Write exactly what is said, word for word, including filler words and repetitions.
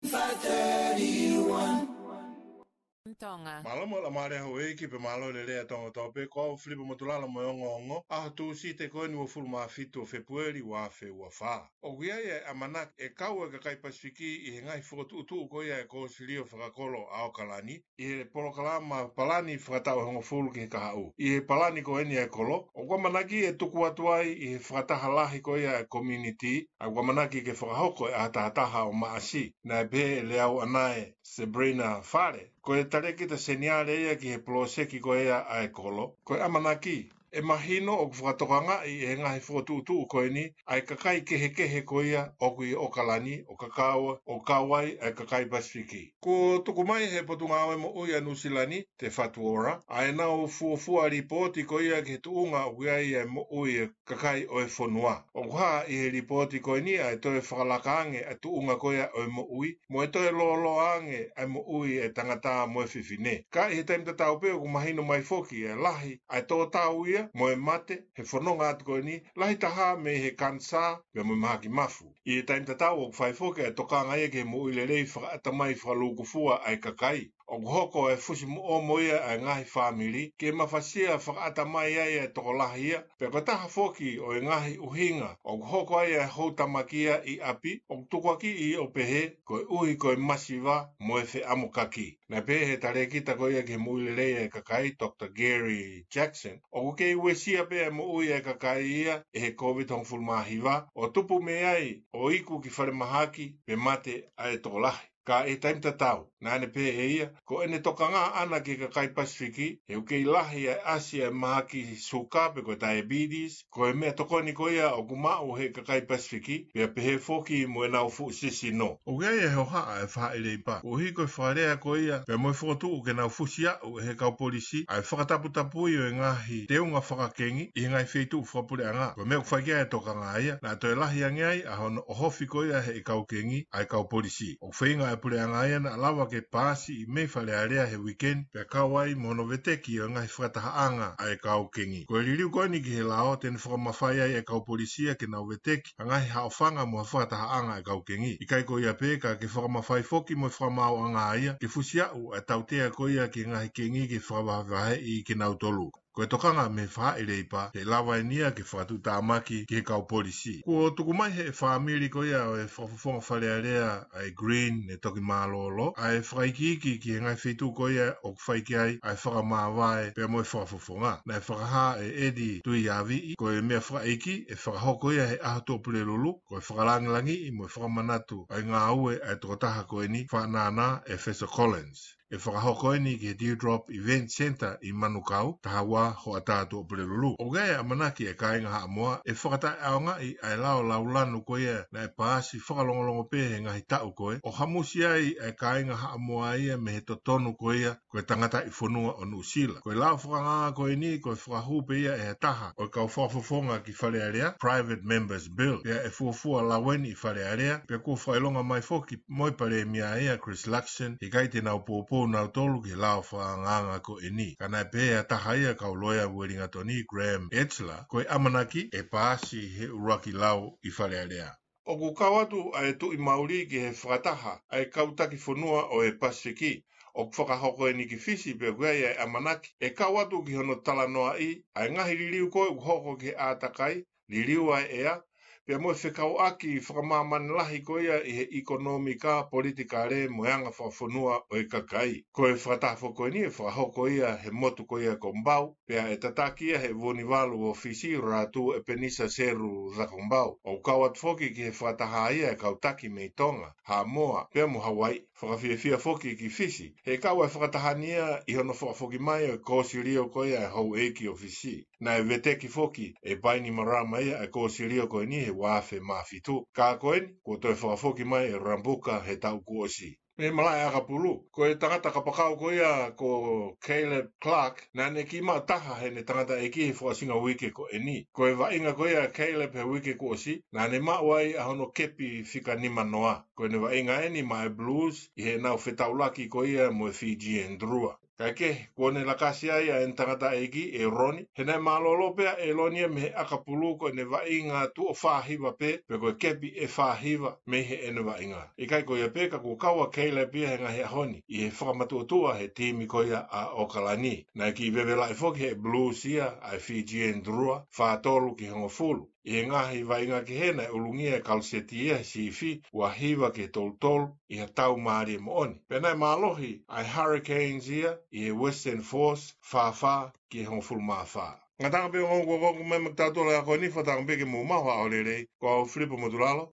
Five thirty-one. Mālō mo e laumālie houʻeiki pea mālō e lelei ʻa Tonga kotoa pē, ko au Filipa Motulala mo e ongoongo, ʻaho Tūsite ko eni uofulu mā fitu ʻo Fēpueli ua afe ua fā. ʻOku ʻi ai e ʻamanaki ʻe kau e kakai Pasifiki ʻi he ngaahi fokotuʻutuʻu ko ia ʻa e Kōsilio Fakakolo ʻa ʻAokalani, ʻi he polokalama palani fakataʻu ʻe hongofulu ki he kahaʻu. ʻI he palani ko eni ʻa e kolo, ʻoku ʻamanaki ʻe tuku atu ai ʻi he fakataha lahi ko ia ʻa e community, ʻa ʻoku ʻamanaki ke fakahoko ʻi he ʻaho taha taha ʻo Maʻasi, naʻe pehē ʻe Leauʻanae Sabrina Fale, ko e talēkita seniale ia ki he poloseki ko ia ʻa e kolo. Ko e ʻamanaki, ʻe mahino ʻoku fakatokangaʻi ʻe he ngaahi fokotuʻutuʻu ko eni ʻa e kakai kehekehe ko ia ʻoku ʻi ʻAokalani, ʻo kau, ʻo kau ai ʻa e kakai Pasifiki. Kuo tuku mai ʻe he Potungāue Moʻui ʻa Nuʻusila ni, Te Whatu Ora, ʻa ʻenau fuofua lipooti ko ia ki he tuʻunga ʻoku ʻi ai ʻa e moʻui ʻa e kakai ʻo e fonua. ʻOku hā ʻi he lipooti ko eni ʻa e toe fakalaka ange ʻa e tuʻunga ko ia ʻo e moʻui, mo e toe lōloa ange ʻa e moʻui ʻa e tangata mo e fefine. Ka ʻi he taimi tatau pē ʻoku mahino mai foki ʻa e lahi ʻa e tō tau ia mo e mate he fononga atu ko eni, lahi taha mei he kanisā pea mo e mahaki mafu. ʻI he taimi tatau ʻoku fai foki ʻa e tokanga ia ki he moʻui lelei fakaʻatamai fakalūkufua ʻa e kakai. ʻOku hoko ʻa e fusimoʻomo ia ʻa e ngaahi fāmili ke mafasia fakaʻatamai ai ʻa e tokolahi ia, pea ko e taha foki ʻo e ngaahi ʻuhinga ʻoku hoko ai ʻa e houtamaki ia ʻi ʻapi, ʻoku tukuakiʻi ʻo pehē koeʻuhi ko e masiva mo e feʻamokaki. Naʻe pehē ʻe he talēkita ko ia ki he moʻui lelei ʻa e kakai, Doctor Gary Jackson, ʻoku kei uesia pē ʻa e moʻui ʻa e kakai ia ʻe he Covid hongofulu mā hiva, ʻo tupu mei ai ʻo iku ki falemahaki pe mate ʻa e tokolahi. Ka ʻi he taimi tatau, naʻa ne pehē ʻe ia, ko ʻene tokanga ʻaʻana ki he kakai Pasifiki, he ʻoku kei lahi ʻa e ʻasi ʻa e mahaki suka pe ko e diabetes, ko e meʻatokoni ko ia ʻoku maʻu ʻe he kakai Pasifiki, pea pehē foki mo ʻenau fuʻu sisino. ʻOku ʻi ai ʻa e hohaʻa ʻa e faʻahi leipa, koeʻuhi ko e fakalea ko ia pea mo e fokotuʻu ke nau fusi aʻu ʻe he kau polisi ʻa e fakataputapui ʻo e ngaahi teunga fakakengi ʻi he ngaahi feituʻu fakapuleʻanga. Ko e meʻa ʻoku fai ki ai ʻa e tokanga ia, naʻa toe lahi ange ai ʻa hono ʻohofi ko ia ʻe he kau kengi ʻa e kau polisi. ʻOku feinga ʻa e puleʻanga ia naʻa lava ke paasi ʻi mei Fale Alea he uikeni, pea kau ai mo hono veteki ʻo e ngaahi fakatahaʻanga ʻa e kau kengi. Ko e liliu ko eni ki he lao te ne fakamafai ai ʻa e kau polisi ia ke nau veteki ʻa e ngaahi haʻofanga mo e fakatahaʻanga ʻa e kau kengi. ʻIkai ko ia pē, ka ke fakamafai foki mo e fakamaauʻanga ia ke fusi aʻu ʻa e tautea ko ia ki he ngaahi kengi ke fakavahevaheʻi kinautolu. Ko e tokanga mei he faʻahi leipa, ʻe lava eni ia ke fakatuʻutāmaki ki he kau polisi. Kuo tuku mai ʻe he fāmili ko ia ʻo e fakafofonga Fale Alea ʻa e Green ne toki mālōlō ʻa e fakaikiiki ki he ngaahi feituʻu ko ia ʻoku fai ki ai ʻa e fakamāvae pea mo e fakafofonga. Naʻe fakahā ʻe Eddie Tuʻiaviʻi, ko e meʻa fakaʻeiki ʻe fakahoko ia he ʻaho Tuʻapulelulu, ko e fakalāngilangiʻi mo e fakamanatu ʻa e ngāue ʻa e tokotaha ko eni, Faʻanana ʻEfeso Collins. ʻE fakahoko eni ki he Dewdrop Event Centre ʻi Manukau, taha ua hoʻatā Tuʻapulelulu. ʻOku ʻi ai ʻa e ʻamanaki ʻa e kāinga Haʻamoa ʻe fakataʻeʻaongaʻi ʻa e lao laulanu ko ia naʻe paasi fakalongolongo pē he ngaahi taʻu ko ē, ʻo hamusi ai ʻa e kāinga Haʻamoa ia mei he totonu ko ia ko e tangataʻi fonua ʻo Nuʻusila. Ko e lao fakangāngā ko eni ko e fakahū pē ia ʻe ha taha ʻo e kau fakafofonga ki Fale Alea, Private Members Bill, pea ʻe fuofua lau eni ʻi Fale Alea, pea kuo fakaʻilonga mai foki mo e Palēmia ia, Chris Luxon, he ʻikai te nau poupou nautolu ki he lao fakangāngā ko eni. Ka naʻe pehē ʻe ha taha ia ʻa e kau loea ʻa Uelingatoni, Graham Edgler, ko e ʻamanaki ʻe paasi he ʻuluaki lau ʻi Fale Alea. ʻOku kau atu ʻa e Tuʻi Mauli ki he fakataha ʻa e kau taki fonua ʻo e Pasifiki. ʻOku fakahoko eni ki Fisi pea ʻoku ʻi ai ʻa e ʻamanaki ʻe kau atu ki hono talanoaʻi ʻa e ngaahi liliu ko ē ʻoku hoko ki he ʻātakai, liliu ʻa e ʻea, pea mo e fekauʻaki fakamāmani lahi ko ia ʻi he ʻikonōmika, politikale mo e anga fakafonua ʻo e kakai. Ko e fakataha foki ko eni ʻe fakahoko ia he motu ko ia ko Bau, pea ʻe tataki ia ʻe he Vunivalu ʻo Fisi, Ratu ʻEpenisa Seru Zakombau. ʻOku kau atu foki ki he fakataha ia ʻa e kau taki mei Tonga, Haʻamoa pea mo Hauaiʻi. Fakafiefia foki ki Fisi he kau ʻa e fakataha ni ia ʻi hono fakafoki mai ʻo e kōsilio ko ia ʻa e houʻeiki ʻo Fisi. Naʻe veteki foki ʻe Bainimarama ia ʻa e kōsilio ko eni he ua afe mā fitu. Ka ko eni, kuo toe fakafoki mai ʻe Rabuka he taʻu kuo ʻosi. Mei he malaʻe ʻakapulu, ko e tangata kapakau ko ia ko Caleb Clarke, naʻa ne kiʻi maʻu taha heʻene tangataʻeiki he fakaʻosinga uike ko eni. Ko e vaʻinga ko ia ʻa Caleb he uike kuo ʻosi, naʻa ne maʻu ai ʻa hono kepi fika nima noa. Ko ʻene vaʻinga eni maʻa e Blues ʻi heʻenau fetaulaki ko ia mo e Fijian Drua. Kae kehe, kuo ne lakasi ai ʻa ʻene tangataʻeiki, ʻEloni, he naʻe mālōlō pē ʻa ʻEloni ia mei he ʻakapulu ko ʻene vaʻinga tuʻo fā hiva pē, pe ko e kepi ʻe fā hiva mei heʻene vaʻinga. ʻIkai ko ia pē, ka kuo kau ʻa Caleb ia he ngaahi ʻaho ni ʻi he fakamatuʻotuʻa he timi ko ia ʻa ʻOkalani. Naʻe kiʻi vevelaʻi foki ʻe he Blues ia ʻa e Fijian Drua, fā tolu ki he hongofulu. ʻI he ngaahi vaʻinga kehe naʻe ʻulungia ʻe Kaluseti ia he sifi, ua hiva ki he tolu tolu, ʻi ha tau mālie moʻoni. Pea naʻe mālohi ʻa e Hurricanes ia ʻi he Western Force, fā fā ki he hongofulu mā fā. Ngataʻanga pē ʻo e ongo kuo kau mai maʻatautolu he ʻaho ni, fakatauange pē ke mou maʻu ha ʻaho lelei, ko au Filipo Motulalo,